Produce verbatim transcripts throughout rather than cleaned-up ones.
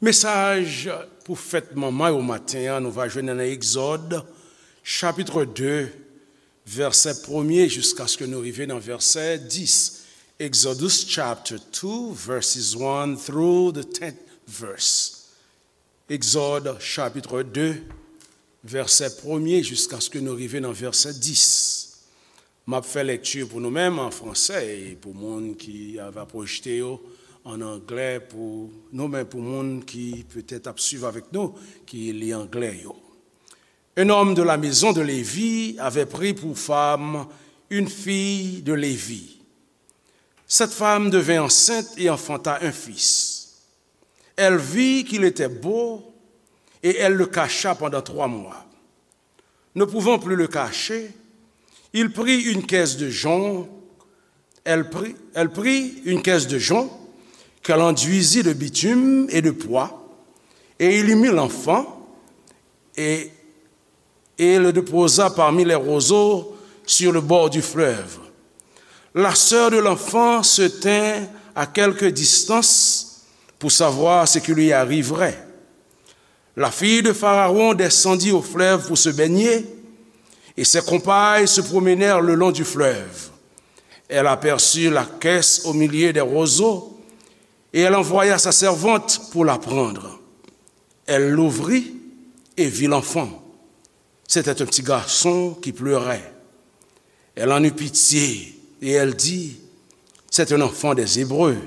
Mesaj pou fèt manman yo maten an, nou va jwenn nan Egzòd, chapit de, vèsè premye, jiskaske nou rive nan vèsè dis. Exodus chapter two, verses one through the tenth verse. Egzòd, chapit de, vèsè premye, jiskaske nou rive nan vèsè dis. M ap fè lekti pou nou menm an fransè, e pou moun ki va pwojte yo an anglè, pou nou menm, pou moun ki petèt ap swiv avèk nou, ki li anglè yo. Un homme de la maison de Lévi avait pris pour femme une fille de Lévi. Cette femme devint enceinte et enfanta un fils. Elle vit qu'il était beau et elle le cacha pendant trois mois. Ne pouvant plus le cacher, il prit une caisse de jonc, elle prit, elle prit une caisse de jonc qu'elle enduisit de bitume et de poix, et il y mit l'enfant, et, et le déposa parmi les roseaux sur le bord du fleuve. La sœur de l'enfant se tint à quelque distance pour savoir ce qui lui arriverait. La fille de Pharaon descendit au fleuve pour se baigner, et ses compagnes se promenèrent le long du fleuve. Elle aperçut la caisse au milieu des roseaux, et elle envoya sa servante pour la prendre. Elle l'ouvrit et vit l'enfant. C'était un petit garçon qui pleurait. Elle en eut pitié et elle dit, c'est un enfant des Hébreux.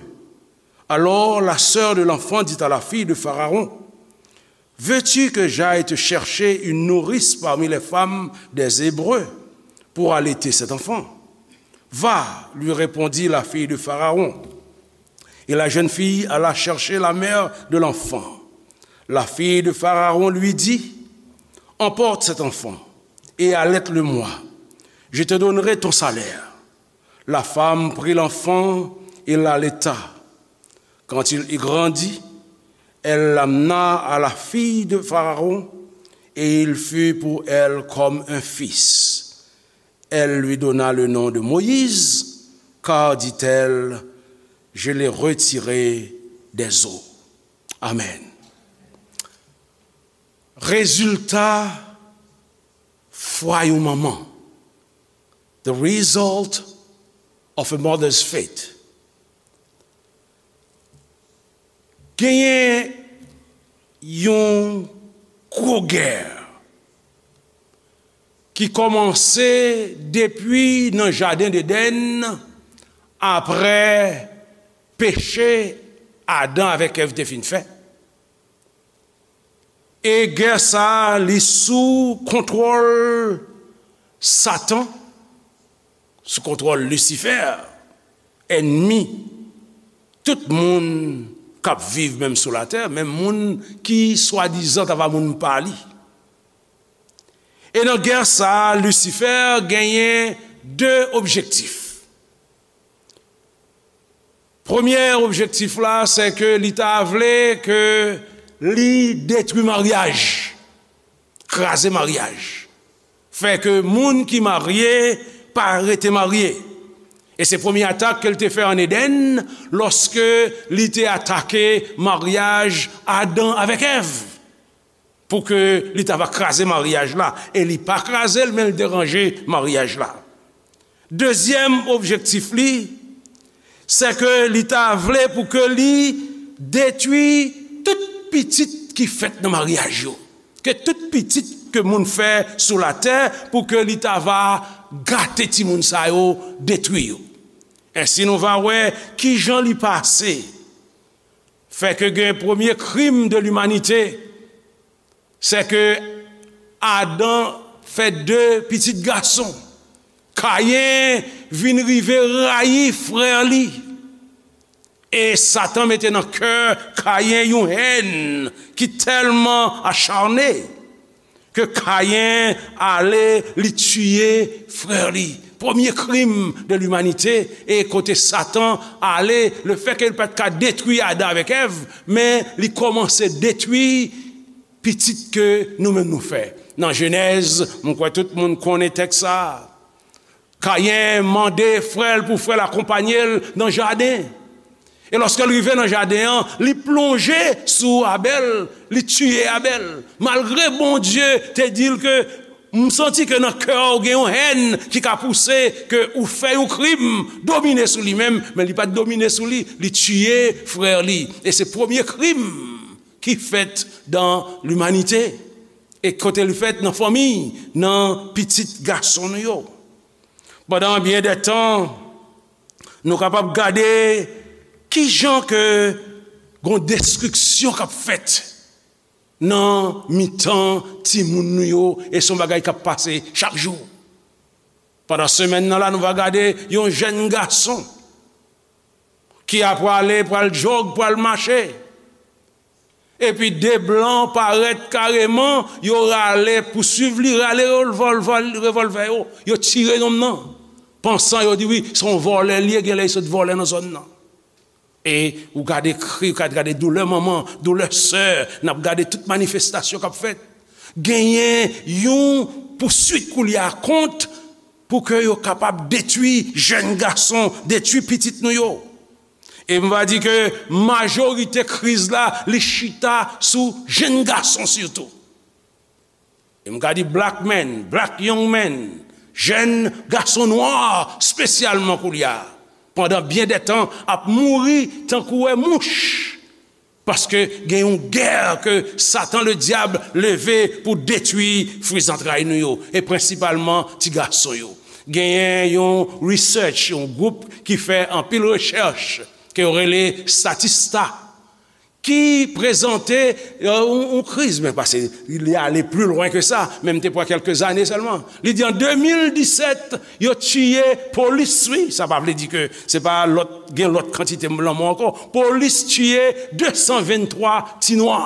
Alors la sœur de l'enfant dit à la fille de Pharaon, veux-tu que j'aille te chercher une nourrice parmi les femmes des Hébreux pour allaiter cet enfant ? Va, lui répondit la fille de Pharaon. Et la jeune fille alla chercher la mère de l'enfant. La fille de Pharaon lui dit, emporte cet enfant et allaite-le-moi. Je te donnerai ton salaire. La femme prit l'enfant et l'allaita. Quand il eut grandi, elle l'amena à la fille de Pharaon, et il fut pour elle comme un fils. Elle lui donna le nom de Moïse, car, dit-elle, je l'ai retiré des eaux. Amen. Rezilta fwa yon manman. The result of a mother's faith. Genyen yon gwo gè ki kòmanse depi nan jaden Edenn, apre peche Adan avèk Èv te fin fè. E gè sa a, li sou kontwòl Satan, sou kontwòl Lisifè, ènmi tout moun k ap viv menm sou latè, menm moun ki swadizan ta va moun pa li. E nan gè sa a, Lisifè genyen de objektif. Premye objektif la, se ke li ta vle ke li detwi maryaj, kraze maryaj, fè ke moun ki marye pa rete marye. E se premye atak ke l te fè ann Edenn, lòske li te atake maryaj Adan avèk Èv, pou ke li ta va kraze maryaj la. E li pa kraze l, men l deranje maryaj la. Dezyèm objektif li, se ke li ta vle pou ke li detwi tout pitit ki fèt nan maryaj yo. Ke tout pitit ke moun fè sou latè, pou ke li ta va gate timoun sa yo, detwi yo. Ensi, nou va wè kijan li pase. Fè ke gen premye krim de limanite, se ke Adan fè de pitit gason. Kayen vin rive rayi frè li. E Satan mete nan kè Kayen yon hèn ki tèlman acharne ke Kayen ale, li tiye frè li. Premye krim de limanite, e kote Satan ale, lefètke li pa t ka detwi Adan avèk Èv, men li kòmanse detwi pitit ke nou menm nou fè. Nan Jenèz, mwen kwè tout moun konnen tèks sa a. Kayen mande frè l pou frè l akonpanye l nan jaden. E lòske l rive nan jaden an, li plonje sou Abèl, li tiye Abèl. Malgre Bondye te di l ke, "M santi ke nan kè w gen yon hèn ki ka pouse ke ou fè yon krim domine sou li menm," men li pa t domine sou li, li tiye frè li. E se premye krim ki fèt dan limanite. E kote li fèt? Nan fanmi, nan pitit gason nou yo. Pandan byen de tan, nou kapab gade ki jan ke gon destriksyon k ap fèt nan mitan timoun nou yo, e se yon bagay k ap pase chak jou. Pandan semèn nan la, nou va gade yon jèn gason ki ap prale, pral jòg, pral mache. Epi de blan parèt kareman, yo rale, pouswiv li, rale revòlvè, revòlvè yo, yo tire nonm nan. Pansan yo di wi, se yon vòlè li ye, genlè li sot vòlè nan zòn nan. E ou gade kri, ou gade, gade doulè manman, doulè sè, n ap gade tout manifestasyon k ap fèt. Genyen yon pouswit koulye a kont pou ke yo kapab detwi jèn gason, detwi pitit nou yo. E m va di ke majorite kriz la, li chita sou jèn gason sitou. E m ka di black men, black young men, jèn gason nwa espesyalman koulye a, pandan byen de tan ap mouri tankou wè mouch. Paske gen yon gè ke Satan Ledyab leve pou detwi fwi zantray nou yo, e prensipalman ti gason yo. Genyen yon research, yon gwoup ki fè anpil rechèch, ke yo rele Statista, ki prezante, euh, yon, yon kriz, men pase li ale pli lwen ke sa, men m te pran kèlke zane sèlman. Li di an de mil disèt, yo tiye polis, wi, sa pa vle di ke se pa lòt, gen lòt kantite lanmò ankò. Polis tiye de san venntwa ti nwa.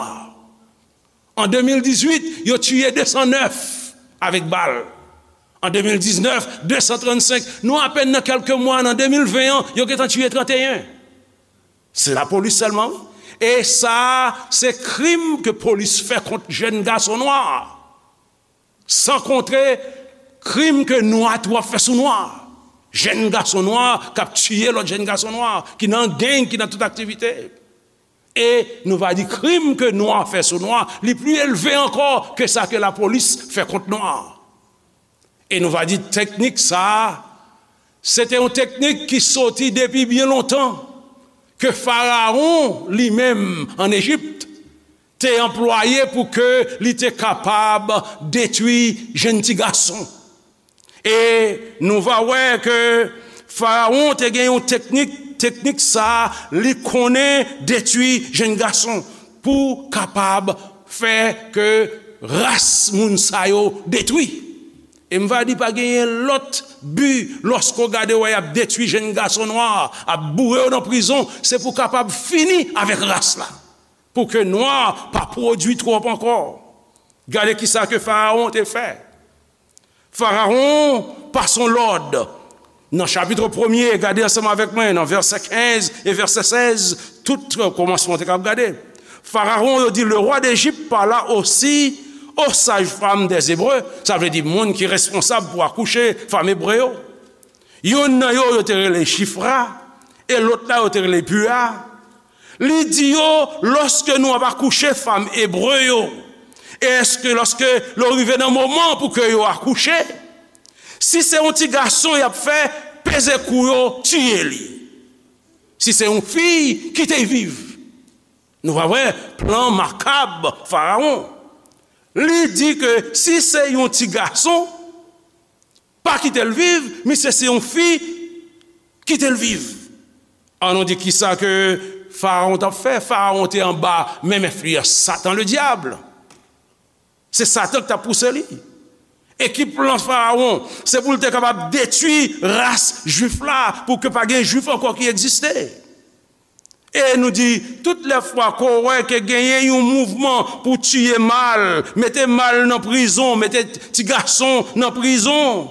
An de mil dizuit, yo tiye de san nèf avèk bal. An de mil diznèf, de san trannsenk. Nou apèn nan kèlke mwa, nan de mil ven an, yo gentan tiye tranteyen. Se lapolis sèlman, wi. E sa a, se krim ke polis fè kont jèn gason nwa. San konte krim ke nwa tou ap fè sou nwa. Jèn gason nwa k ap tiye lòt jèn gason nwa, ki nan gang, ki nan tout aktivite. E nou va di krim ke nwa fè sou nwa, li pli elve ankò ke sa ke lapolis fè kont nwa. E nou va di teknik sa a, se te yon teknik ki soti depi byen lontan, ke Farawon li menm ann Ejip te anplwaye pou ke li te kapab detwi jèn ti gason. E nou va wè ke Farawon te gen yon teknik, teknik sa a, li konnen detwi jèn gason pou kapab fè ke ras moun sa yo detwi. E m va di pa genyen lòt bi lòske w gade wè y ap detwi jèn gason nwa, ap boure yo nan prizon, se pou kapab fini avèk ras la. Pou ke nwa pa pwodui twòp ankò. Gade kisa ke Farawon te fè. Farawon pase yon lòd. Nan chapit premye, gade ansanm avèk mwen, nan vèsè kenz e vèsè sèz, tout kòmansman te kab gade. Farawon, yo di, le roi d'Égypte parla aussi aux sages-femmes des Hébreux, sa vle di moun ki responsab pou akouche fanm ebre yo. Youn nan yo, yo te rele Chifra, e lòt la, yo te rele Pua. Li di yo, lòske nou ap akouche fanm ebre yo, e èske lòske lè w rive nan moman pou ke yo akouche, si se yon ti gason y ap fè, peze kou yo, tiye li. Si se yon fi, kite l viv. Nou va wè plan makab Farawon. Li di ke si se yon ti gason, pa kite l viv, misye se yon fi, kite l viv. An nou di kisa ke Farawon t ap fè. Farawon te anba menm enfliyans Satan Ledyab. Se Satan ki t ap pouse li. E ki plan Farawon? Se pou l te kapab detwi ras Jwif la, pou ke pa gen Jwif ankò ki egziste. E nou di, tout lè fwa ke w wè ke genyen yon mouvman pou tiye mal, mete mal nan prizon, mete ti gason nan prizon,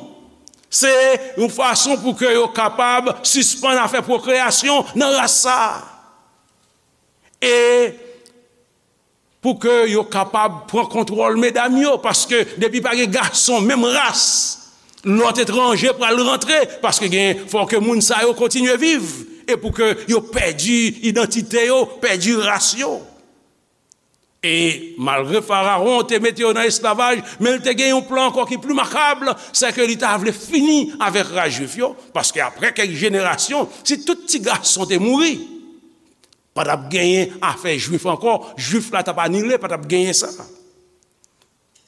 se yon fason pou ke yo kapab sispann afè pwokreyasyon nan ras sa a. E pou ke yo kapab pran kontwòl medam yo, paske depi pa gen gason menm ras, lòt etranje pral rantre, paske gen, fò ke moun sa yo kontinye viv. e pou ke yo pèdi idantite yo, pèdi ras yo. E malgre Farawon te mete yo nan esklavaj, men l te gen yon plan ankò ki pli makab, se ke li ta vle fini avèk ras jwif yo, paske apre kèk jenerasyon, si tout ti gason te mouri, pa t ap genyen afè jwif ankò, jwif la t ap anile, pa t ap genyen sa.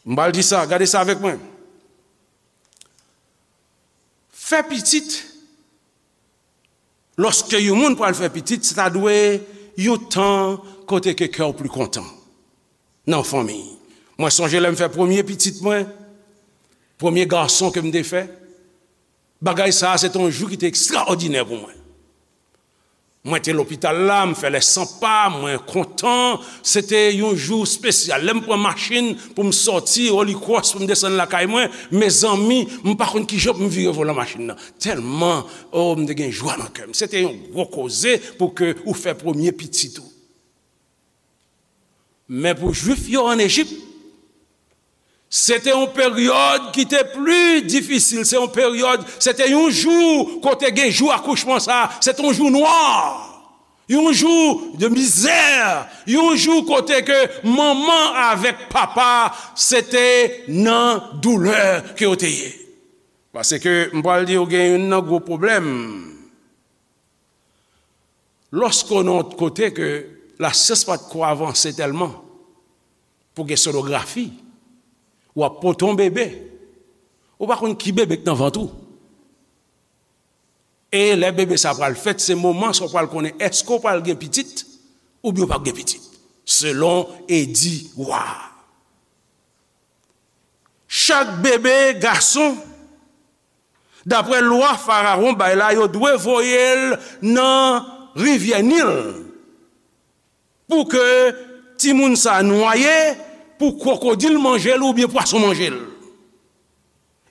M pral di sa, gade sa avèk mwen. Fè pitit, lòske yon moun pral fè pitit, se ta dwe yon tan kote ke kè w pli kontan nan fanmi. Mwen sonje lè m fè premye pitit mwen, premye gason ke m te fè, bagay sa a se te yon jou ki te ekstraòdinè pou mwen. Mwen te lopital la, m fè lè san pa, mwen kontan. Se te yon jou espesyal. Lè m pran machin pou m sòti Holy Cross, pou m desann lakay mwen, mezanmi, m pa konn kijan pou m vire volan machin nan. Tèlman, o, m te gen jwa nan kè m. Se te yon gwo koze pou ke ou fè premye pitit ou. Men pou Jwif yo ann Ejip, se te yon peryòd ki te pli difisil. Se yon peryòd, se te yon jou kote gen jou akouchman sa, se te yon jou nwa, yon jou de mizè, yon jou kote ke manman avèk papa se te nan doulè ke yo te ye. Paske m pral di w gen youn nan gwo pwoblèm. Lòske w nan yon kote ke lasyans pa t ko avanse tèlman pou gen sonografi, w ap pote yon bebe, ou pa konn ki bebe k nan vant ou. E lè bebe sa pral fèt, se moman sa w pral konnen èske w pral gen pitit oubyen w p ap gen pitit, selon edi wa a. Chak bebe gason, daprè lwa Farawon bay la, yo dwe voye l nan rivyè Nil pou ke timoun sa a nwaye, pou kwokodil manje l oubyen pwason manje l.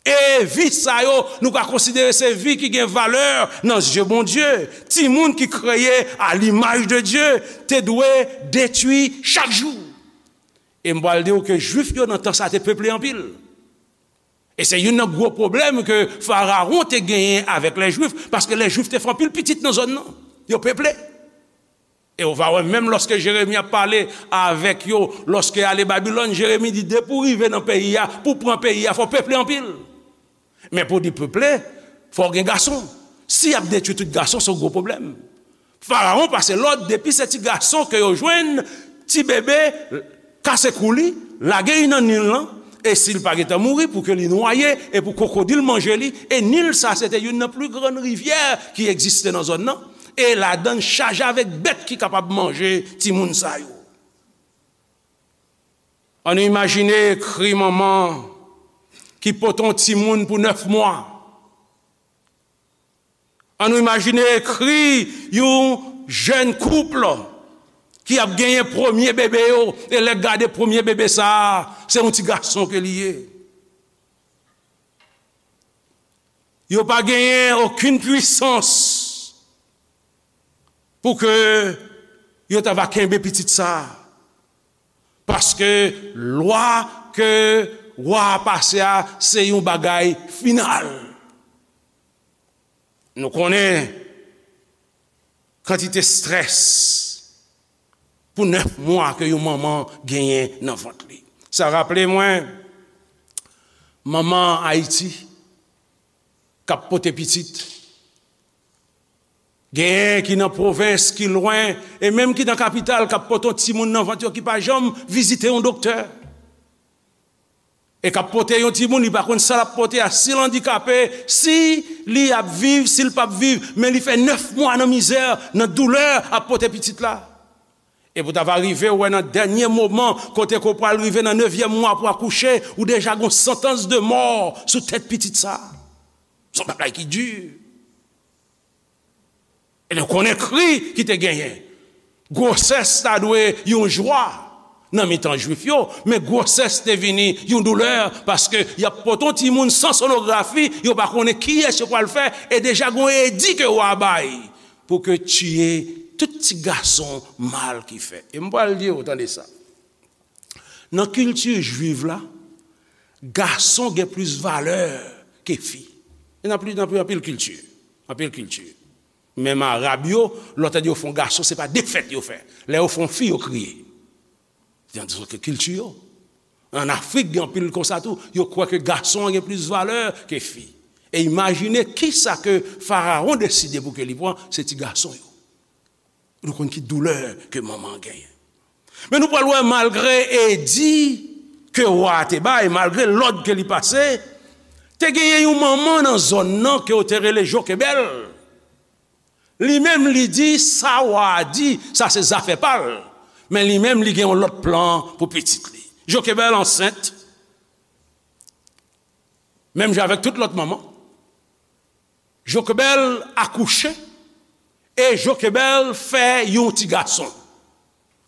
E vi sa yo, nou ka konsidere se vi ki gen valè nan zye Bondye. Timoun ki kreye a limaj de Dye te dwe detwi chak jou. E m pral di w ke Jwif yo nan tan sa te peple anpil. E se youn nan gwo pwoblèm ke Farawon te genyen avèk lè Jwif, paske lè Jwif te fè anpil pitit nan zòn nan. Yo peple. E w va wè, menm lòske Jeremi ap pale avèk yo, lòske y ale Babilòn, Jeremi di, depi w rive nan peyi a, pou w pran peyi a, fò w peple anpil. Men pou w di peple, fò w gen gason. Si y ap detwi tout gason, se yon gwo pwoblèm. Farawon pase lòd, depi se ti gason ke yo jwenn, ti bebe, kase kou li, lage li nan Nil lan, e si l pa gentan mouri, pou ke li nwaye, e pou kwokodil manje li, e Nil sa, se te youn nan pli grann rivyè ki egziste nan zòn nan, e ladan l chaje avèk bèt ki kapab manje timoun sa yo. Ann imajine kri manman ki pote yon timoun pou nèf mwa. Ann imajine kri yon jèn koup ki ap genyen premye bebe yo, e lè gade premye bebe sa a, se yon ti gason ke li ye. Yo pa genyen okenn pwisans pou ke yo ta va kenbe pitit sa a. Paske lwa ke wa a pase a, se yon bagay final. Nou konnen kantite estrès pou nèf mwa ke yon manman genyen nan vant li. Sa raple mwen manman Ayiti k ap pote pitit. Genyen ki nan pwovens, ki lwen, e menm ki nan kapital, k ap pote yon timoun nan vant yo ki pa janm vizite yon doktè. E k ap pote yon timoun, li pa konn sa l ap pote a, si l andikape, si li ap viv, si l p ap viv, men li fè nèf mwa nan mizè, nan doulè, ap pote pitit la. E pou ta va rive, ou wè nan dènye moman, kote ke w pral rive nan nevyèm mwa pou akouche, ou deja gon santans de mò sou tèt pitit sa. Se yon bagay ki di. E nou konnen kri ki te genyen. Gwosès ta dwe yon jwa nan mitan Jwif yo, men gwosès te vini yon doulè, paske y ap pote yon timoun san sonografi, yo pa konnen kiyès yo pral fè, e deja gon edi ke wa a bay pou ke tiye tout ti gason mal ki fèt. E m pral di w, tande sa. Nan kilti jwiv la, gason gen plis valè ke fi. E nan pli, nan pli, anpil kilti. Anpil kilti. Menm Arab yo, lè w tande yo fè yon gason, se pa defèt yo fè. Lè yo fè yon fi, yo kriye. Se nan kilti yo. An Afrik, gen anpil konsa tou. Yo kwè ke gason an gen plis valè ke fi. E imajine kisa ke Farawon deside pou ke li pran, se ti gason yo. Nou konn ki doulè ke manman an genyen. Men nou pral wè, malgre edi ke wa a te bay, malgre lòd ke li pase, te genyen yon manman nan zòn nan ke yo te rele Jokebèl. Li menm, li di, sa wa a di, sa se zafè pa l. Men li menm, li gen yon lòt plan pou pitit li. Jokebèl ansent, menm jan avèk tout lòt manman. Jokebèl akouche, e Jokebèl fè yon ti gason.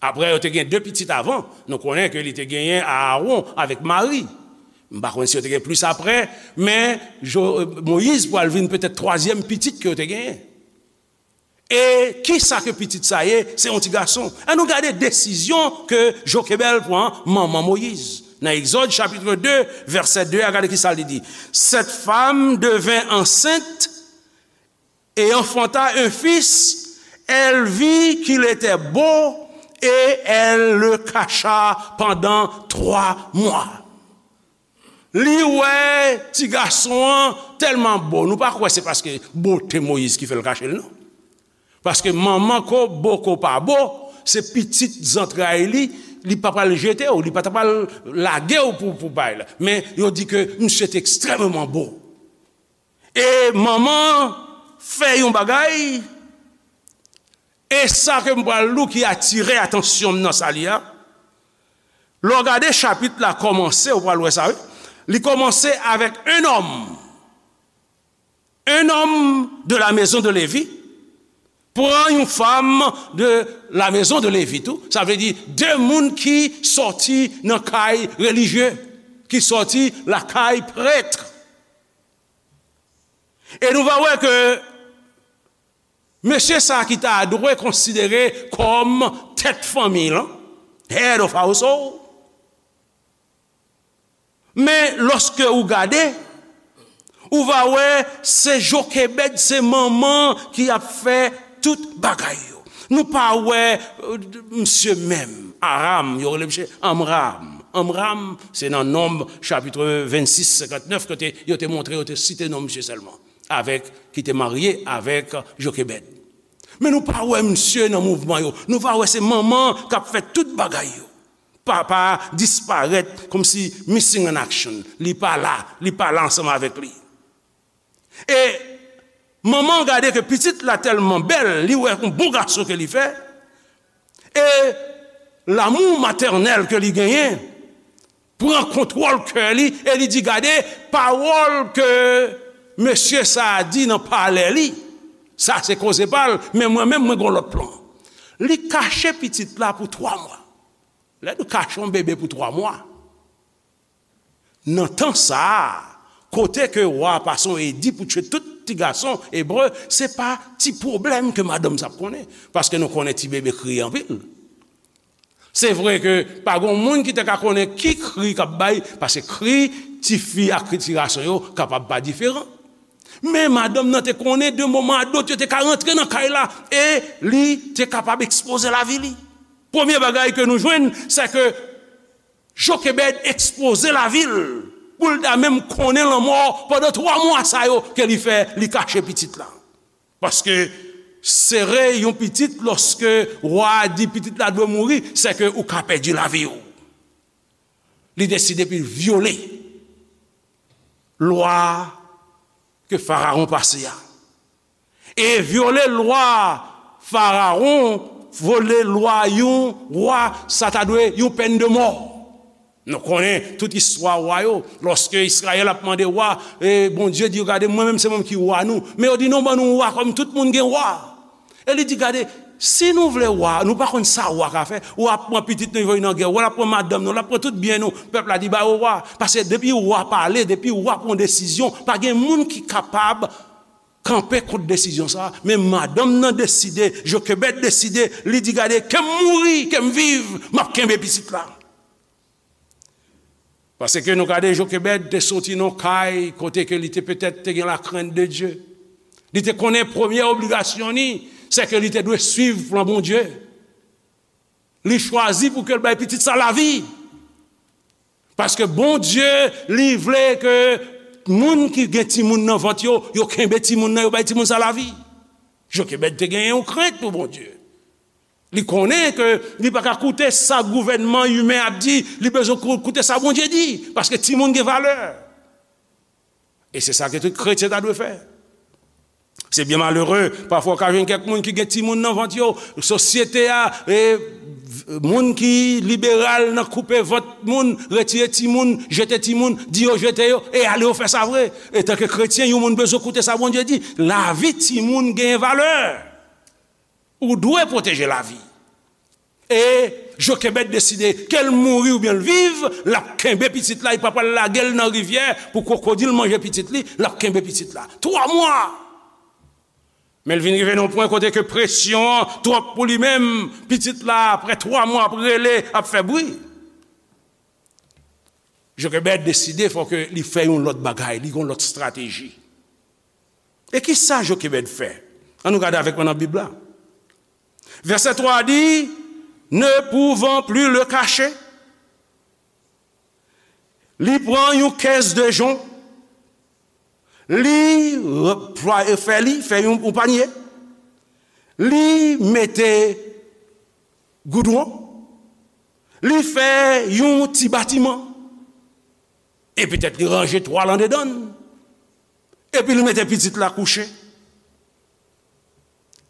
Apre, yo te gen de pitit avan. Nou konnen ke li te genyen Aawon avèk Mari. M pa konn si yo te gen plis apre, men Jo-, Moyiz pral vin petèt twazyèm pitit ke yo te genyen. E kisa ke pitit sa ye? Se yon ti gason. Ann nou gade desizyon ke Jokebèl pran, manman Moyiz. Nan Egzòd chapit de, vèsè de a, gade kisa li di. Cette femme devint enceinte et enfanta un fils. Elle vit qu'il était beau et elle le cacha pendant trois mois. Li wè ti gason an tèlman bo. Nou pa kwè se paske bote Moyiz ki fè l kache l, non. Paske manman ko bo ko pa bo, se pitit zantray li, li pa pral jete w, li pa ta pral lage w pou, pou bay la. Men yo di ke misye te ekstrèmman bo. E manman fè yon bagay, e sa ke m pral li w ki atire atansyon m nan sa li a. Lè w gade chapit la kòmanse, ou pral wè sa, wi. Li kòmanse avèk un homme. Un homme de la maison de Lévi pran yon fanm de la maison de Lévi tou. Sa vle di de moun ki sòti nan kay relijye, ki sòti lakay prèt. E nou va wè ke mesye sa ki ta dwe konsidere kòm tèt fanmi lan, head of household. Men lòske ou gade, ou va wè se Jokebèd, se manman ki ap fè tout bagay yo. Nou pa wè, euh, misye menm, Aram, yo rele misye Amram. Amram, se nan Nonb, chapit vennsis, senkantnèf, kote yo te montre, yo te site non misye sèlman, avèk, ki te marye avèk Jokebèd. Men nou pa wè misye nan mouvman yo. Nou va wè se manman k ap fè tout bagay yo. Papa disparèt kòmsi missing in action. Li pa la, li pa la ansanm avèk li. E manman gade ke pitit la tèlman bèl, li wè yon bon gason ke li fè. E lanmou matènèl ke li genyen pran kontwòl kè li e li di, gade, pawòl ke mesye sa a di nan palè li, sa se koze pa l, men mwen menm, mwen gen yon lòt plan. Li kache pitit la pou twa mwa. Lè nou kache yon bebe pou twa mwa, nan tan sa a, kote ke wa a pase yon edi pou tchwe tout ti gason ebre, se pa ti pwoblèm ke madanm sa ap konnen. Paske nou konnen ti bebe kriye anpil. Se vre ke pa gen moun ki te ka konnen ki kri k ap bay, paske kri tifi ak kri ti gason yo kapab pa diferan. Men madanm nan te konnen de moman a dòt yo te ka rantre nan kay la e li te kapab ekspoze lavi li. Premye bagay ke nou jwenn, se ke Jokebèd ekspoze lavi l pou l ta menm konnen lanmò pandan twa mwa sa yo ke li fè, li kache pitit la. Paske sere yon pitit lòske wa a di pitit la dwe mouri, se ke ou ka pèdi lavi w. Li deside pou l vyole lwa ke Farawon pase a. E vyole lwa Farawon, vyole lwa yon wa, sa ta dwe yon pèn de mò. Nou konnen tout istwa wa yo. Lòske Izrayèl ap mande wa, e Bondye di yo, gade, mwen menm se mwen ki wa nou. Men yo di, non, ban nou wa kòm tout moun gen wa. E li di, gade, si nou vle wa, nou pa konn sa wa ka fè. Wa ap pran pitit nou, voye nan gè. Wa ap pran madanm nou, l ap pran tout byen nou. Pèp la di, ba yo wa. Paske depi wa pale, depi wa pran desizyon, pa gen moun ki kapab kanpe kont desizyon sa a. Men madanm nan deside, Jokebèd deside, li di, gade, ke m mouri, ke m viv, m ap kenbe pitit la. Paske nou gade Jokebèd te soti nan kay kote ke li te petèt te gen la crainte de Dieu. Li te konnen premye obligasyon li, se ke li te dwe swiv plan Bondye. Li chwazi pou ke l bay pitit sa lavi. Paske Bondye, li vle ke moun ki gen timoun nan vant yo, yo kenbe timoun nan, yo bay timoun sa lavi. Jokebèd te genyen yon krent pou Bondye. Li konnen ke li pa ka koute sa gouvènman imen ap di, li bezwen kou- koute sa Bondye di, paske timoun gen valè. E se sa ke tout kretyen ta dwe fè. Se byen malere, pafwa w ka jwenn kèk moun ki gen timoun nan vant yo, sosyete a, e, moun ki liberal nan koupe vant moun, retire timoun, jete timoun, di yo jete yo, e ale yo fè sa vre. Etanke kretyen, yon moun bezwen koute sa Bondye di. Lavi timoun gen valè. Ou dwe pwoteje lavi. E Jokebèd deside, ke l mouri oubyen l viv, l ap kenbe pitit la, li pa pral lage l nan rivyè pou kwokodil manje pitit li, l ap kenbe pitit la. Twa mwa! Men l vin rive nan yon pwen kote ke presyon an twòp pou li menm, pitit la, apre twa mwa, ap rele, ap fè bri. Jokebèd deside fò ke li fè yon lòt bagay, li gen yon lòt estrateji. E ki sa Jokebèd fè? Ann nou gade avèk mwen nan Bib la. Vèsè twa a di, ne pouvant plus le cacher, li pran yon kès de jon, li replwaye, fè li, fè yon, yon panye, li mete goudwon, li fè yon ti batiman, e petèt li ranje twal andedan l, epi li mete pitit la kouche.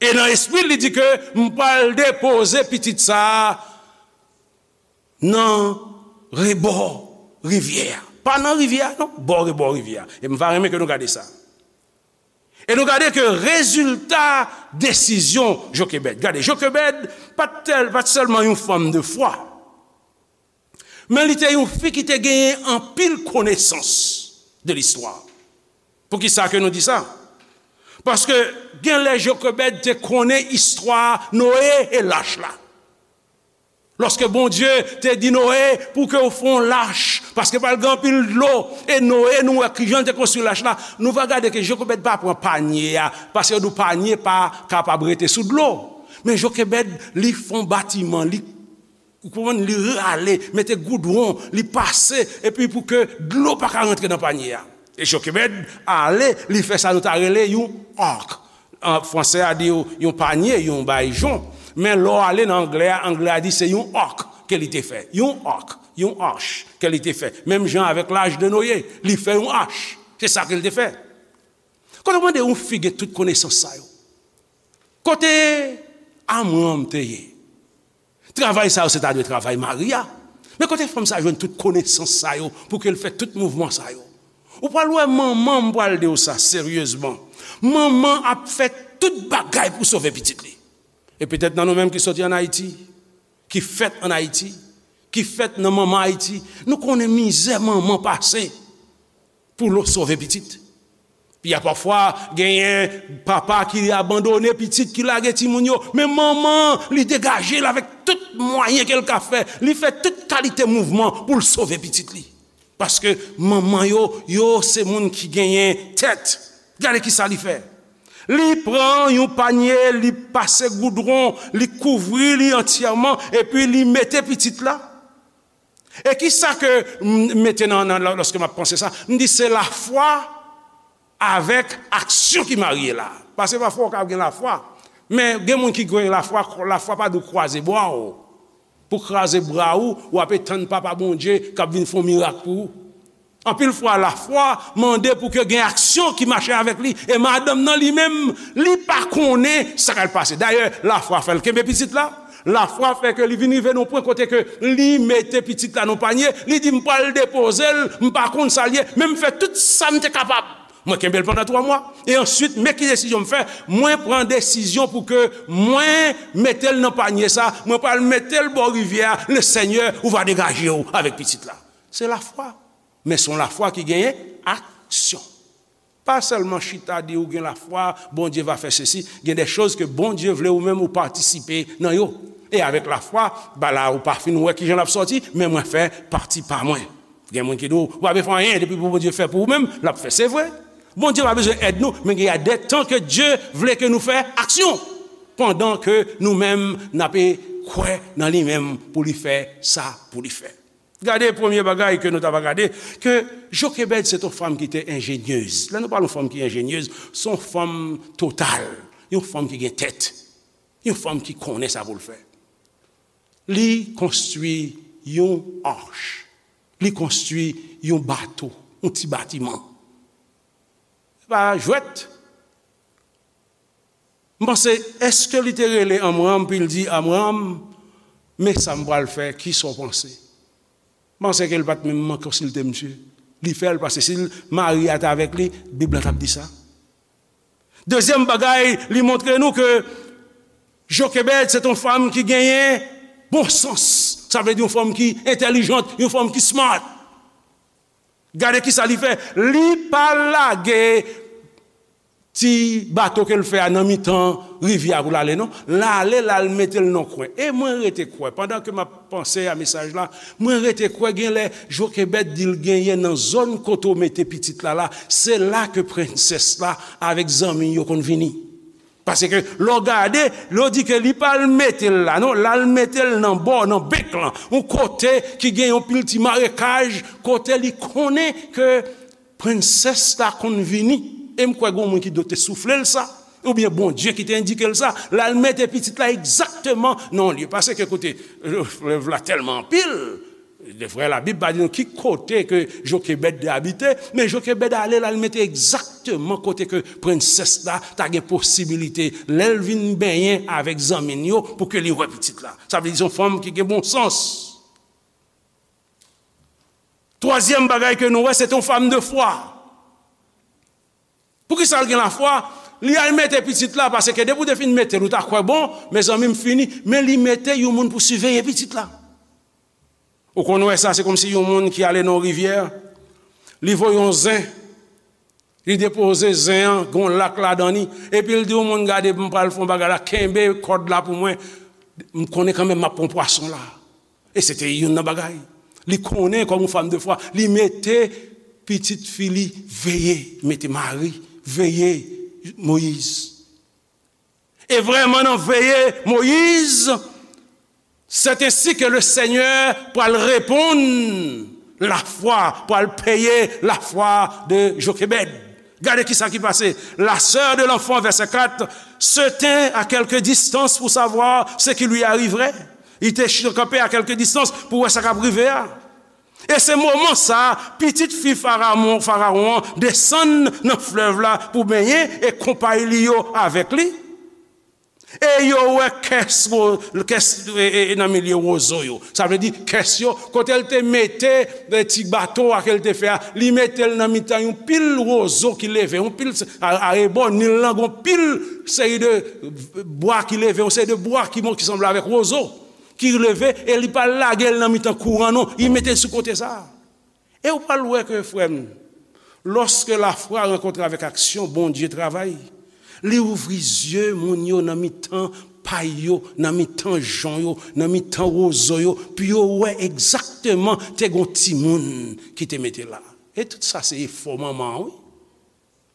E nan espri l, li di ke m pral depoze pitit sa a nan rebò rivyè a. Pa nan rivyè a, non, bò rebò rivyè a. E m va renmen ke nou gade sa. E nou gade ke rezilta desizyon Jokebèd. Gade, Jokebèd pa t tèl, pa t sèlman yon fanm de fwa. Men li te yon fi ki te genyen anpil konesans de listwa. Poukisa ke nou di sa? Paske gen lè Jokebèd te konnen istwa Noye e lach la. Lòske Bondye te di Noye pou ke w fè yon lach, paske pral gen anpil dlo, e Noye, nou wè kijan l te konstwi lach la, nou va gade ke Jokebèd pa pran panye a, paske yo di w panye pa kapab rete sou dlo. Men Jokebèd, li fè yon batiman, li Ou konprann? Li rale, mete goudwon, li pase, epi pou ke dlo pa ka rantre nan panye a. E Jokebèd ale, li fè sa nou ta rele yon ark. An fransè a di yon, yon panye, yon bay jon. Men lè w ale nan anglè a, anglè a di se yon ark ke li te fè. Yon ark, yon arch ke li te fè. Menm jan avèk lach de Noye, li fè yon arch. Se sa ke li te fè. Kote w mande yon fi gen tout konesans sa yo? Kote Amram te ye? Travay sa yo, se ta dwe travay mari a. Men kote fanm sa jwenn tout konesans sa yo pou ke l fè tout mouvman sa yo? Ou pral wè manman, m pral di w sa seryezman. Manman ap fè tout bagay pou sove pitit li. E petèt nan nou menm ki soti ann Ayiti, ki fèt ann Ayiti, ki fèt nan manman Ayiti, nou konnen mizè manman pase pou l sove pitit. Pi a pafwa, genyen papa ki abandone pitit, ki lage timoun yo. Men manman, li degaje l avèk tout mwayen ke l ka fè. Li fè tout kalite mouvman pou l sove pitit li. Paske manman yo, yo se moun ki genyen tèt. Gade ki sa li fè. Li pran yon panye, li pase goudwon, li kouvri li antyèman, epi li mete pitit la. E ki sa ke m mete nan, nan, lòske m ap panse sa? M di se lafwa avèk aksyon ki marye la. Paske pafwa w ka gen lafwa, men gen moun ki gen lafwa, lafwa pa di w kwaze bra w. Pou kraze bra w, w ape tann Papa Bondye k ap vin fè yon mirak pou ou. Anpil fwa, lafwa mande pou ke gen aksyon ki mache avèk li. E madanm nan li menm, li pa konnen sa k al pase. Dayè, lafwa fè l kenbe pitit la. Lafwa fè ke li vin rive nan yon pwen kote ke li mete pitit la nan panye. Li di, "M pral depoze l, m pa konn sa l ye, men m fè tout sa m te kapab. Mwen kenbe l pandan twa mwa. E answit, men ki desizyon m fè? Mwen pran desizyon pou ke mwen mete l nan panye sa. Mwen pral mete l bò rivyè a. Le Senyè, ou va degaje w avèk pitit la." Se lafwa. Men se yon lafwa ki genyen aksyon. Pa sèlman chita di ou gen lafwa, Bondye va fè sesi. Gen de choz ke Bondye vle ou menm ou patisipe nan yo. E avèk lafwa, ba la ou pa fin wè kijan l ap sòti, men mwen fè pati pa mwen. Gen moun ki di w, ou pa bezwen fè anyen, depi pou Bondye fè pou ou menm, l ap fè. Se vre. Bondye pa bezwen èd nou, men gen de tan ke Dye vle ke nou fè aksyon, pandan ke nou menm n ape kwè nan li menm pou li fè sa pou li fè. Gade premye bagay ke nou ta va gade, ke Jokebèd se t yon fanm ki te enjenyez. Lè nou pale yon fanm ki enjenyez, se yon fanm total, yon fanm ki gen tèt, yon fanm ki konnen sa pou l fè. Li konstwi yon arch, li konstwi yon bato, yon ti batiman. Se pa jwèt. M panse, èske li te rele Amram, pou l di, Amram, men sa m pral fè, kisa w panse? M panse ke l pa t menm konsilte misye. Li fè l, paske si l, mari a t avèk li, Bib la t ap di sa. Dezyèm bagay, li montre nou ke Jokebèd se t yon fanm ki genyen bon sans. Sa vle di yon fanm ki entèlijant, yon fanm ki smart. Gade kisa li fè. Li pa lage ti bato ke l fè a nan mitan rivyè a pou l ale, non. L ale, l al mete l nan kwen. E mwen rete kwè, pandan ke m ap panse a mesaj la, mwen rete kwè gen lè Jokebèd di l genyen nan zòn kote w mete pitit la la, se la ke prensès la avèk zanmi yo konn vini. Paske lè w gade, lè w di ke li pa al mete l la, non, l al mete l nan bò, nan bèk lan, yon kote ki gen yon pil ti marekaj, kote li konnen ke prensès la konn vini. E m kwè gen yon moun ki dwe te soufle l sa, oubyen Bondye ki te endike l sa, l al mete pitit la egzakteman nan yon lye. Paske kote, flèv la tèlman anpil, de vrè, Labib pa di nou ki kote ke Jokebèd te abite, men Jokebèd ale, l al mete egzakteman kote ke prensès la ta gen posibilite, lè l vin benyen avèk zanmi l yo, pou ke li wè pitit la. Sa vle di se yon fanm ki gen bon sans. Twazyèm bagay ke nou wè, se te yon fanm de fwa. Poukisa l gen lafwa? Li al mete pitit la, paske depi w te fin mete l, ou ta kwè bon, mezanmi, m fini. Men li mete yon moun pou siveye pitit la. Ou konn wè sa, se kòmsi yon moun ki ale nan yon rivyè, li voye yon zen, li depoze zen an, gen yon lak ladan li, epi l di yon moun, gade, m pral fè yon bagay la, kenbe kòd la pou mwen, m konnen kanmenm m ap pran pwason la. E se te youn nan bagay. Li konnen kòm yon fanm de fwa, li mete pitit fi li veye, mete mari veye Moyiz. E vrèman nan veye Moyiz, c'est ainsi que le Seigneur pral reponn lafwa, pral peye lafwa de Jokebèd. Gade kisa ki pase. La sœur de l'enfant, verset quatre, se tint à quelque distance pour savoir ce qui lui arriverait. Li te kanpe a kèlke distans pou wè sa k ap rive a. E se moman sa a, pitit fi Farawon, Farawon an desann nan flèv la pou benyen e konpay li yo avèk li. E yo wè kès, wo-, kès, e, e, e nan milye wozo yo. Sa vle di kès yo, kote l te mete, e, ti bato a ke l te fè a, li mete l nan mitan yon pil wozo ki leve, yon pil, a, arebò Nil lan, gon pil seri de bwa ki leve, yon seri de bwa ki, bon, ki sanble avèk wozo, ki leve, e li pa lage l nan mitan kouran, non, li mete l sou kote sa a. E ou pral wè ke, frè m, lòske lafwa rankontre avèk aksyon, Bondye travay. Li ouvri zye moun yo nan mitan pay yo, nan mitan jon yo, nan mitan wozo yo, pou yo wè egzakteman te gon timoun ki te mete la. E tout sa se efò manman an, wi.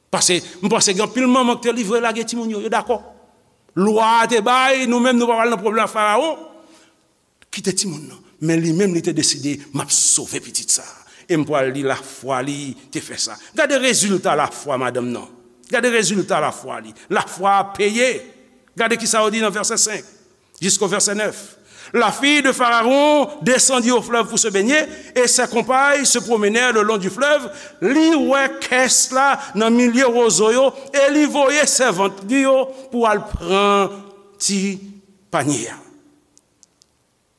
Paske m panse gen anpil manman ki te livre lage timoun yo, yo dakò. Lwa a te bay, nou menm nou pa pral nan pwoblèm ak Farawon. Kite timoun nan. Men li menm li te deside, m ap sove pitit sa a. E m pral di lafwa li te fè sa. Gade rezilta lafwa madanm nan. Gade rezilta lafwa li. Lafwa a peye. Gade kisa yo di nan vèsè senk. Jusqu'au verset neuf. La fille de Pharaon descendit au fleuve pour se baigner, et ses compagnes se promenèrent le long du fleuve. Li wè kès la nan milye wozo yo, e li voye sèvant li yo pou al pran ti panye a.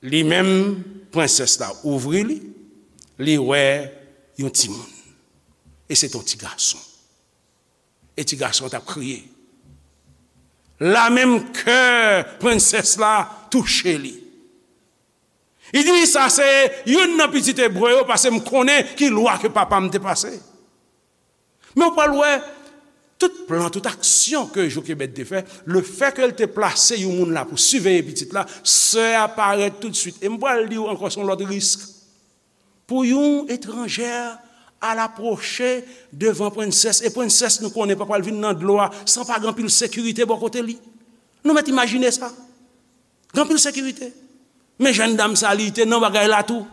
Li menm, prensès la ouvri li, li wè yon timoun. E se t on ti gason. E ti gason an t ap kriye. La menm kè prensès la touche li. Li di, sa se youn nan pitit ebre yo, paske m konnen ki lwa ke papa m te pase. Men w pral wè, tout plan, tout aksyon ke Jokebèd te fè, lefètke l te plase yon moun la pou siveye pitit la, sè a parèt toutswit. E m pral di w ankò, se yon lòt risk. Pou yon etranjè Al apwoche devan prensès. E prensès, nou konnen, pa pral vin nan dlo a san pa gen anpil sekirite bò kote li. Nou mèt imajine sa. Gen anpil sekirite. Men jèn dam sa, li te nan bagay la tou.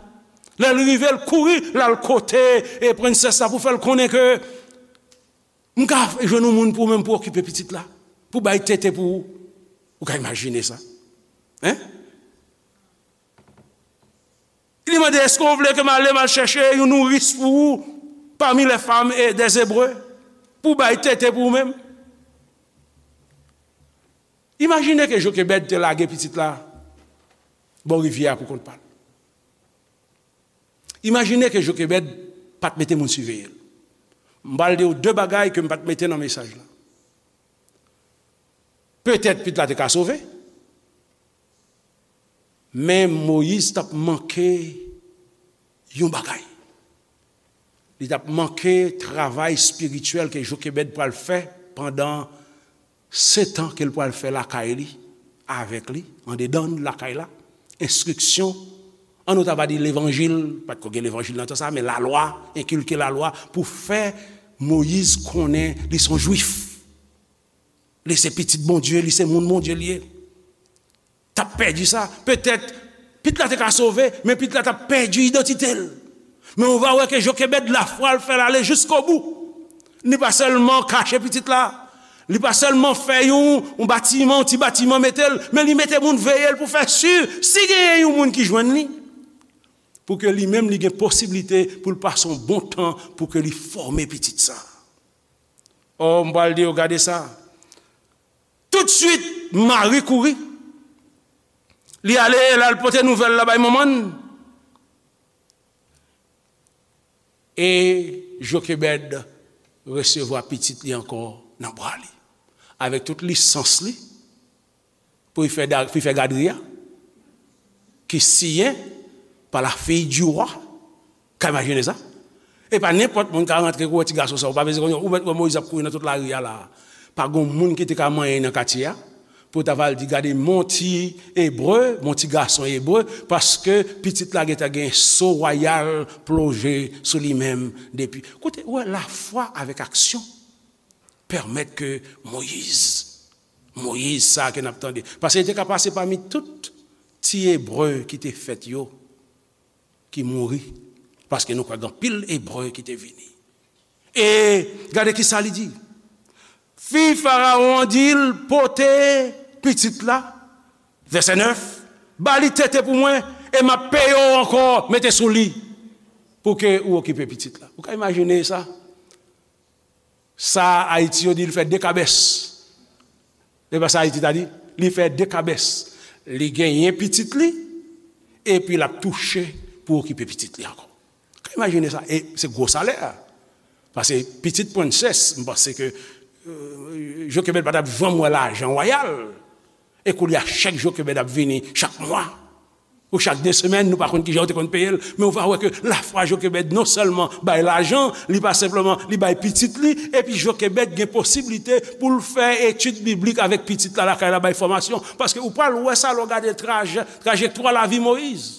Lè l rive, l kouri, l al kote e prensès la pou fè l konnen ke m ka jwenn yon moun pou ou menm pou okipe pitit la, pou bay tete pou ou. Ou ka imajine sa? Hein? Li mande, èske w vle ke m ale, m al chèche yon nouris pou ou parmi les femmes et des Hébreux, pou bay tete pou ou menm? Imajine ke Jokebèd te lage pitit la bò rivyè a pou kont pa l. Imajine ke Jokebèd pa t mete moun siveye l. M pral di w de bagay ke m pa t mete nan mesaj la. Petèt pitit la te ka sove, men Moyiz t ap manke yon bagay. Li t ap manke travay espirityèl ke Jokebèd pral fè pandan setan ke l pral fè lakay li, avèk li, andedan lakay la, enstriksyon, an nou ta va di levanjil, pa t ko gen levanjil nan tan sa, men lalwa, enkilke lalwa pou fè Moyiz konnen li se yon jwif. Li se pitit Bondye, li se moun Bondye li ye. T ap pèdi sa. Petèt, pitit la te ka sove, men pitit la t ap pèdi idantite l. Men ou va wè ke Jokebèd, lafwa l fè l ale jiskobou. Li pa sèlman kache pitit la, li pa sèlman fè yon, yon batiman, yon ti batiman mete l, men li mete moun veye l pou fè si, si genyen yon moun ki jwenn li, pou ke li menm li gen posiblite pou l pase yon bon tan pou ke li fòme pitit sa. O, m pral di yo, gade sa. Toutswit, Mari kouri. Li ale, l al pote nouvèl la bay manman l. E Jokebèd resevwa pitit li ankò nan bra li. Avèk tout lisans li, pou li fè, da- pou li fè gadri a, ki siyen pa la fille du roi. Ka imajine sa? E pa nenpòt moun ka rantre kou wè ti gason sa. Ou pa bezwen konn, ou mèt wè Moyiz ap kouri nan tout lari a la. Pa gon moun ki te ka manyen nan katye a. Pou ta va al di, gade, mon ti ebre, mon ti gason ebre, paske pitit la gentan gen so wayal ploje sou li menm depi. Koute, ou wè, lafwa avèk aksyon pèmèt ke Moyiz, Moyiz sa ke n ap tande. Paske li te ka pase pami tout ti ebre ki te fèt yo, ki mouri. Paske nou kwè gen anpil ebre ki te vini. E gade ki sa li di. Fi Farawon an di l, pote pitit la, vèsè nèf, ba li tete pou mwen, e m ap peye w ankò, mete sou li, pou ke ou okipe pitit la. Ou ka imajine sa? Sa Ayiti yo di, li fè de kabès. Se pa sa Ayiti ta di? Li fè de kabès. Li genyen pitit li, epi l ap touche pou okipe pitit li ankò. Ka imajine sa? E se gwo salè a. Paske pitit prensès, m panse ke, euh, Jokebèd pa t ap janm wè lajan wayal. E koulye a, chèk Jokebèd ap vini chak mwa. Ou chak de semèn, nou pa konn kijan yo te konn peye l, men ou va wè ke lafwa Jokebèd non sèlman bay lajan, li pa senpleman, li bay pitit li, epi Jokebèd gen posiblite pou l fè etid biblik avèk pitit la lakay la, bay fòmasyon. Paske ou pral wè sa lè w gade trajè, trajektwa lavi Moyiz.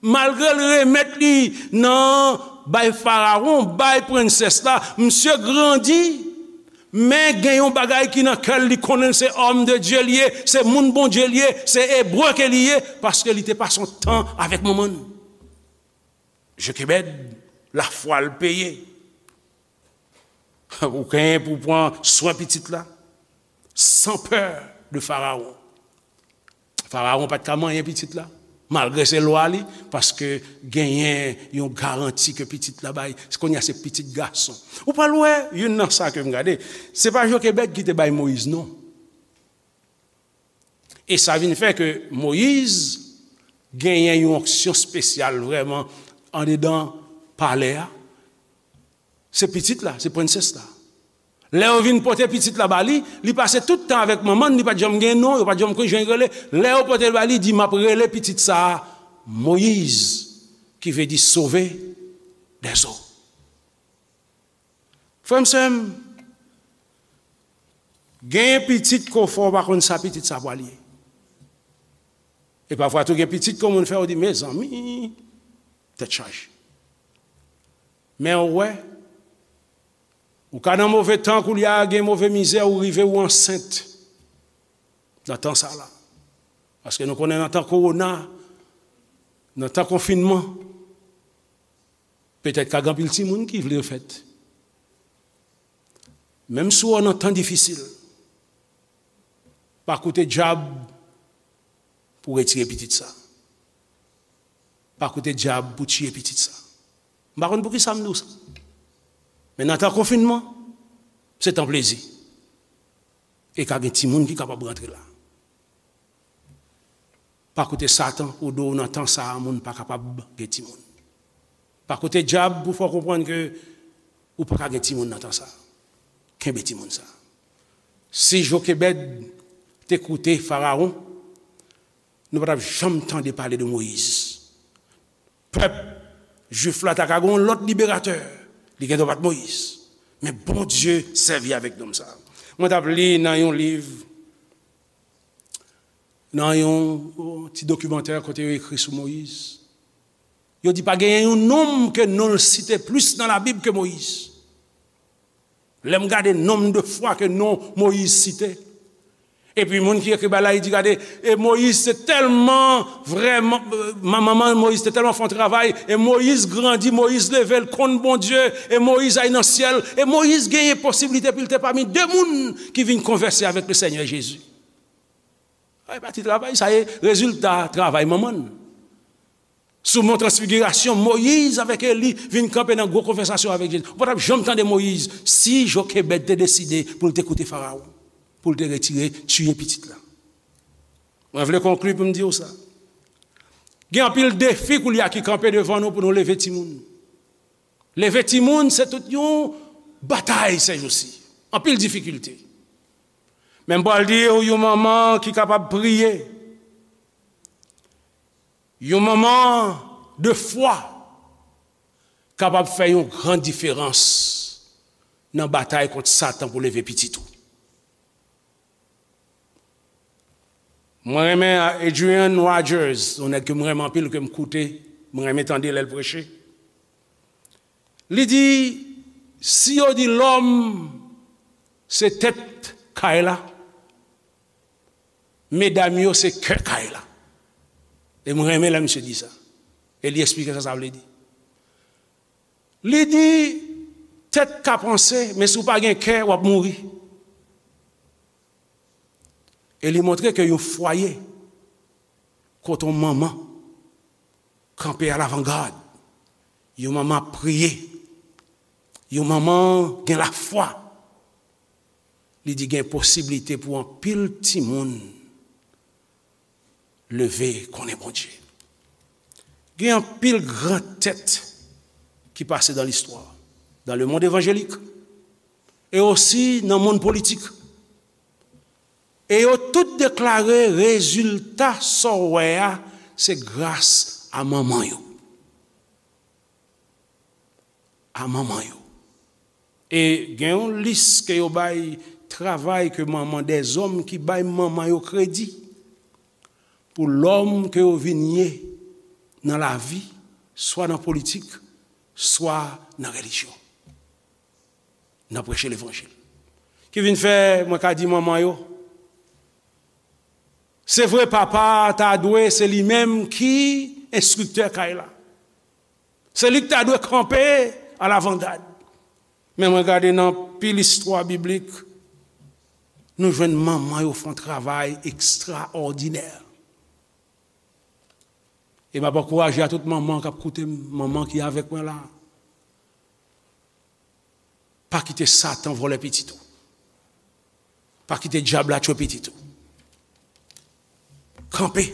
Malgre l remèt li nan bay Farawon, bay prensès la, misye grandi, men gen yon bagay ki nan kè l, li konnen l se òm de Dye li ye, se moun Bondye li ye, se ebre ke li ye, paske li te pase yon tan avèk manman l. Jokebèd, lafwa l peye. Ou genyen pou pran swen pitit la, san pè de Farawon. Farawon pa t ka manyen pitit la, malgre se lwa li, paske genyen yon garanti ke pitit la bay. Kounye a se pitit gason. Ou pral wè, youn nan sa ke m gade, se pa Jokebèd ki te bay Moyiz non. E sa vin fè ke Moyiz genyen yon onksyon espesyal vrèman andedan palè a. Se pitit la, se prensès la. Lè yo vin pote pitit la ba li, li pase tout tan avèk manman l, li pa t janm gen non, yo pa t janm konn jan l rele. Lè yo pote l ba li, li di, "M ap rele pitit sa a Moyiz," ki vle di sove dèzo. Frè m, sè m, genyen pitit ke w fè w pa konn sa pitit sa pral ye. E pafwa tou gen pitit ke yon moun fè, ou di, "Mezanmi, tèt chaje." Men ou wè, Ou ka nan move tan koulye a, gen move mizè, ou rive ou ansent nan tan sa la. Paske nou konnen nan tan kowona, nan tan konfinman, petèt ka gen anpil timoun ki vle fèt. Menm si w nan tan difisil, pa koute dyab pou retire pitit sa. Pa koute dyab pou tiye pitit sa. M pa konn poukisa m di w sa. Men nan tan konfinman, se tan plezi. E ka gen timoun ki kapab rantre la. Pa koute Satan pou di w nan tan sa a, moun pa kapab gen timoun. Pa koute dyab pou fè w konprann ke ou pa ka gen timoun nan tan sa a. Kenbe timoun sa a. Si Jokebèd te koute Farawon, nou pa t ap janm tande pale de Moyiz. Pèp jwif la ta ka gen yon lòt liberatè. Li gen dwa pa t Moyiz. Men Bondye sèvi avèk nonm sa a. Mwen t ap li nan yon liv, nan yon, yon ti dokimantè kote yo ekri sou Moyiz. Yo di pa genyen yon nonm ke non l site plis nan Labib ke Moyiz. Lè m gade nonm de fwa ke non Moyiz site, epi moun ki ekri bagay la, li di, gade, e Moyiz te tèlman vrèman, ma-, manman Moyiz te tèlman fè yon travay, e Moyiz grandi, Moyiz leve, l konn Bondye, e Moyiz al nan syèl, e Moyiz genyen posiblite pou l te pami de moun ki vin konvèse avèk le Senyè Jezi. Sa e pa ti travay, sa e rezilta travay manman l. Sou Mont Transfigirasyon, Moyiz avèk Eli vin kanpe nan gwo konvèsasyon avèk Jezi. Ou pa t ap janm tande Moyiz si Jokebèd te deside pou l te koute Farawon, pou l te retire, tiye pitit la. Mwen vle konkli pou m di w sa. Gen anpil defi koulye a ki kanpe devan nou pou nou leve timoun. Leve timoun, se tout yon batay sèjousi. Anpil difikilte. Men m pral di w, yon manman ki kapab priye, yon manman de fwa kapab fè yon gran diferans nan batay kont Satan pou leve pitit ou. Mwen renmen Adrian Rogers, yon nèg ke mwen renmen anpil, ke m koute, mwen renmen tande lè l preche. Li di, si yo di lòm se tèt kay la, medam yo se kè kay la. E mwen renmen lè misye di sa. E li eksplike sa sa vle di. Li di, tèt ka panse, men si w pa gen kè, w ap mouri. E li montre ke yon fwaye kote yon manman kanpe alavangad, yon manman ap priye, yon manman gen lafwa, li di gen posiblite pou anpil timoun leve konnen Bondye. Gen anpil gran tèt ki pase dans l'histoire, dans le monde évangélique, e osi nan mond politik. E yo tout deklare rezilta sa w wè a, se gras a manman yo. A manman yo. E gen yon lis ke yo bay travay ke manman, dèzòm ki bay manman yo kredi pou lòm ke yo vin ye nan lavi, swa nan politik, swa nan relijyon, nan preche levanjil. Ki vin fè, mwen ka di manman yo, se vre, papa ta dwe se li menm ki enstriktè kay la. Se li ki ta dwe kanpe alavangad. Men mwen gade nan pil istwa biblik, nou jwenn manman yo fè yon travay ekstraòdinè. E m ap ankouraje a tout manman k ap koute m, manman ki avèk mwen la. Pa kite Satan vòlè pitit ou. Pa kite dyab la tchwe pitit ou. Kanpe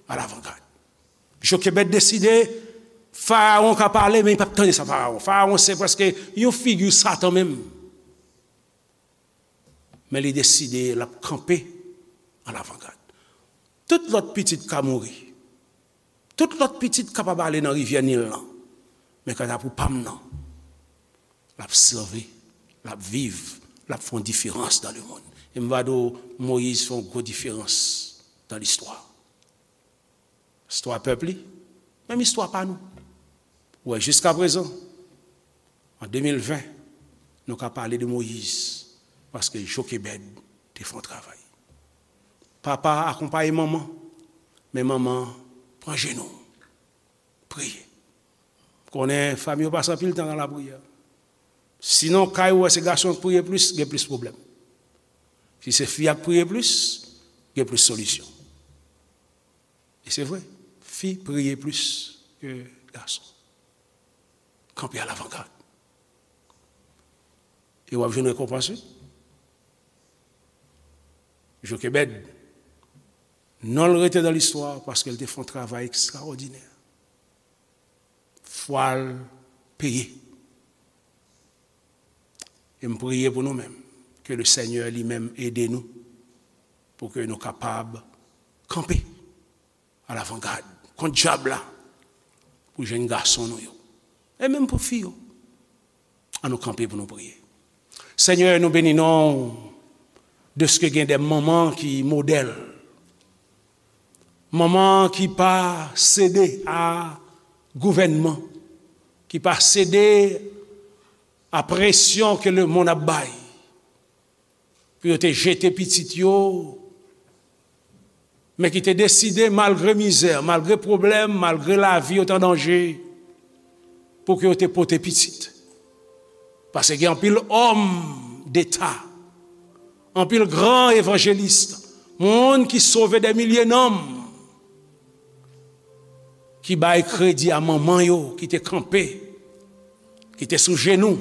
alavangad. Jokebèd deside, Farawon ka pale, men li p ap tande sa Farawon. Farawon se prèske yon figi Satan menm. Men li deside l ap kanpe alavangad. Tout lòt pitit ka mouri. Tout lòt pitit kapab ale nan rivyè Nil lan. Men kanta pou pa m nan, l ap sèvi, l ap viv, l ap fè yon diferans dans le monde. E m va di w, Moyiz fè yon gwo diferans dans l'histoire. Istwa pèp li, menm istwa pa nou. Ou wè, jiskaprezan, an de mil ven, Nou ka pale de Moyiz, paske Jokebèd te fè yon travay. Papa akonpaye manman, men manman pran jenou, priye. Konnen fanmi yo pase anpil tan nan lapriyè. Sinon, kay ou wè se gason k priye plis, gen plis pwoblèm. Si se fi a k priye plis, gen plis solisyon. E se vre, fi priye plis ke gason. Kanpe alavangad. E w ap jwenn rekonpans, wi. Jokebèd, non l rete nan listwa paske l te fè yon travay ekstraòdinè. Fwa l peye. E m priye pou nou menm, ke le Senyè li menm ede nou, pou ke nou kapab kanpe alavangad kont dyab la, pou jèn gason nou yo, e menm pou fi yo. An nou kanpe pou nou priye. Senyè, nou beni non w dèske gen de manman ki modèl. Manman ki pa sede a gouvènman, ki pa sede a presyon ke lemonn ap bay, pou yo te jete pitit yo, men ki te deside, malgre mizè, malgre pwoblèm, malgre lavi yo te an danje, pou ke yo te pote pitit. Paske gen anpil òm deta, anpil gran evanjelis, moun ki sove de milye nanm, ki bay kredi a manman yo ki te kanpe, ki te sou jenou,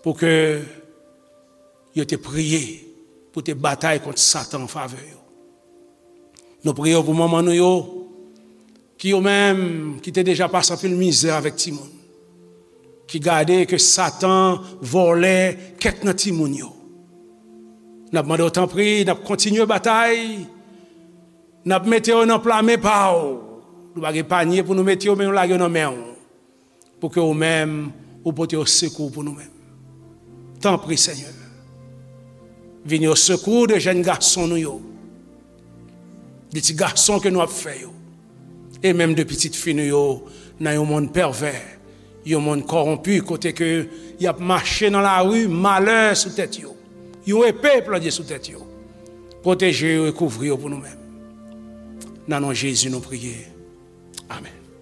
pou ke yo te priye, pou te batay kont Satan an favè yo. Nou priye pou manman nou yo, ki yo menm, ki te deja pase anpil mizè avèk timoun, ki gade ke Satan vòlè kèk nan timoun yo. N ap mande w tanpri, n ap kontinye batay, n ap mete yo nan pla men pa w. Nou pa gen panye pou nou mete yo, men nou lage yo nan men w, pou ke ou menm, ou pote yo sekou pou nou menm. Tanpri, Senyè, vini o sekou de jèn gason nou yo, de ti gason ke nou ap fè yo, e menm de pitit fi nou yo, nan yon monn pèvè, yon monn kòwonpi, kote ke y ap mache nan lari, malè sou tèt yo, yon epe planye sou tèt yo. Pwoteje yo e kouvri yo pou nou menm. Nan non Jezi nou priye. Amèn.